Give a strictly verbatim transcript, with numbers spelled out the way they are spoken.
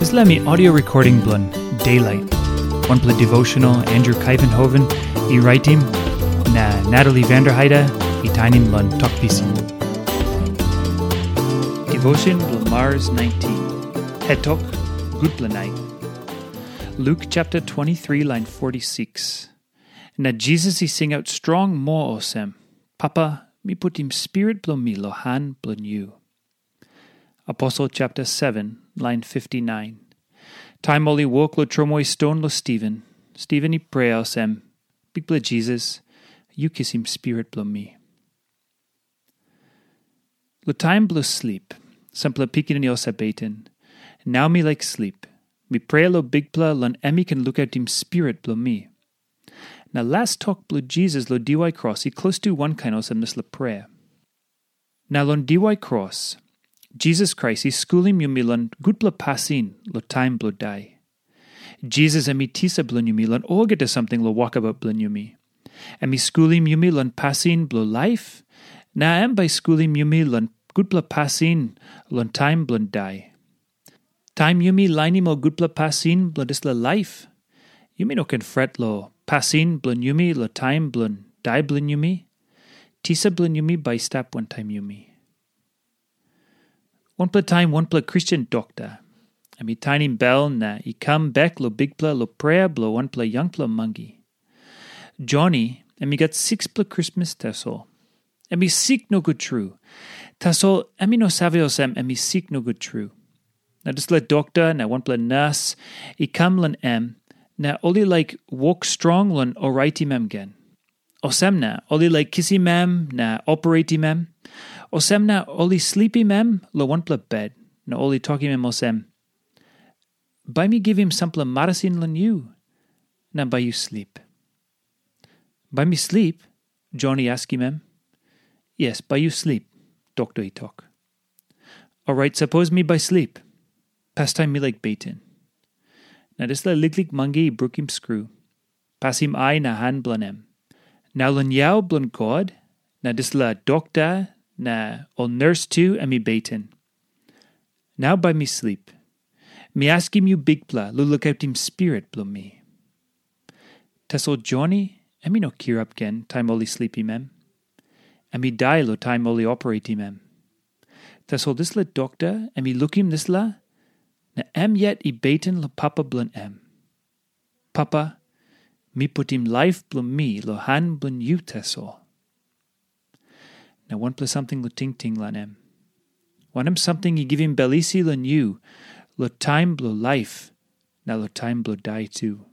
Dispela mi audio recording bilong Daylight. Wanpela devotional Andrew Kaivenhoven i raitim, na Natalie Vanderheide i tainim long Tok Pisin. Devotion bilong Mars nineteen. Het tok, gutpela nait. Luke chapter twenty-three, line forty-six. Na Jisas i singaut strong moa olsem, "Papa, mi putim spirit bilong mi long han bilong yu." Aposel chapter seven, line fifty-nine. Taim ol i wok long tromoi ston long Stiven, Stiven i prea olsem, "Bikpela Jisas, yu kisim spirit bilong mi." Long taim bilong slip, sampela pikinini ol Sebeten, nau mi laik slip, mi prea long Bikpela long em i ken lukautim spirit bilong mi. Na las tok bilong Jisas long diwai kros i klostu wankain olsem dispela prea. Na long diwai kros, Jisas Krais i skulim yumi long gutpela pasin long taim bilong dai. Jisas em i tisa bilong yumi long olgeta samting long wokabaut bilong yumi. Em i skulim yumi long pasin bilong laip, na em bai i skulim yumi long gutpela pasin long taim bilong dai. Taim yumi lainim ol gutpela pasin bilong dispela laip, yumi no ken fret long pasin bilong yumi long taim bilong dai bilong yumi. Tisa bilong yumi bai i stap wantaim yumi. Wanpela taim wanpela Kristen dokta, em i tainim bel na i kam bek long Bikpela long prea bilong wanpela yangpela mangi. Joni, em i gat sikspela krismas tasol. Em i sik nogut tru. Tasol em i no save olsem em i sik nogut tru. Na dispela dokta na wanpela nas i kam long em, na ol i laik wok strong long oraitim em gen. Olsem na ol i laik kisim em na opereitim em. Olsem na ol i slipim em long wanpela bet, na ol i tokim em olsem, "Bai mi givim sampela marasin long yu, na bai yu slip." "Bai mi slip?" Jon i askim em. "Yes, bai yu slip," dokta i tok. "Orait, sapos mi bai slip, pastaim mi laik beten." Na dispela liklik mangi i brukim skru, pasim ai na han bilong em. Na long yau bilong God, na dispela dokta na ol nurse tu em i beten. "Nau bai mi slip. Mi askim yu Bikpela long lukautim spirit bilong mi." Tasol Joni em i no kirap gen taim ol i slipim em. Em i dai long taim ol i opereitim em. Tasol dispela dokta em i lukim dispela, na em yet i beten long papa bilong em. "Papa, mi putim laip bilong mi long han bilong yu tasol." Na wanpela samting long tingting long em. Wanem samting i givim bel isi long yu long taim bilong laip na long taim bilong dai tu?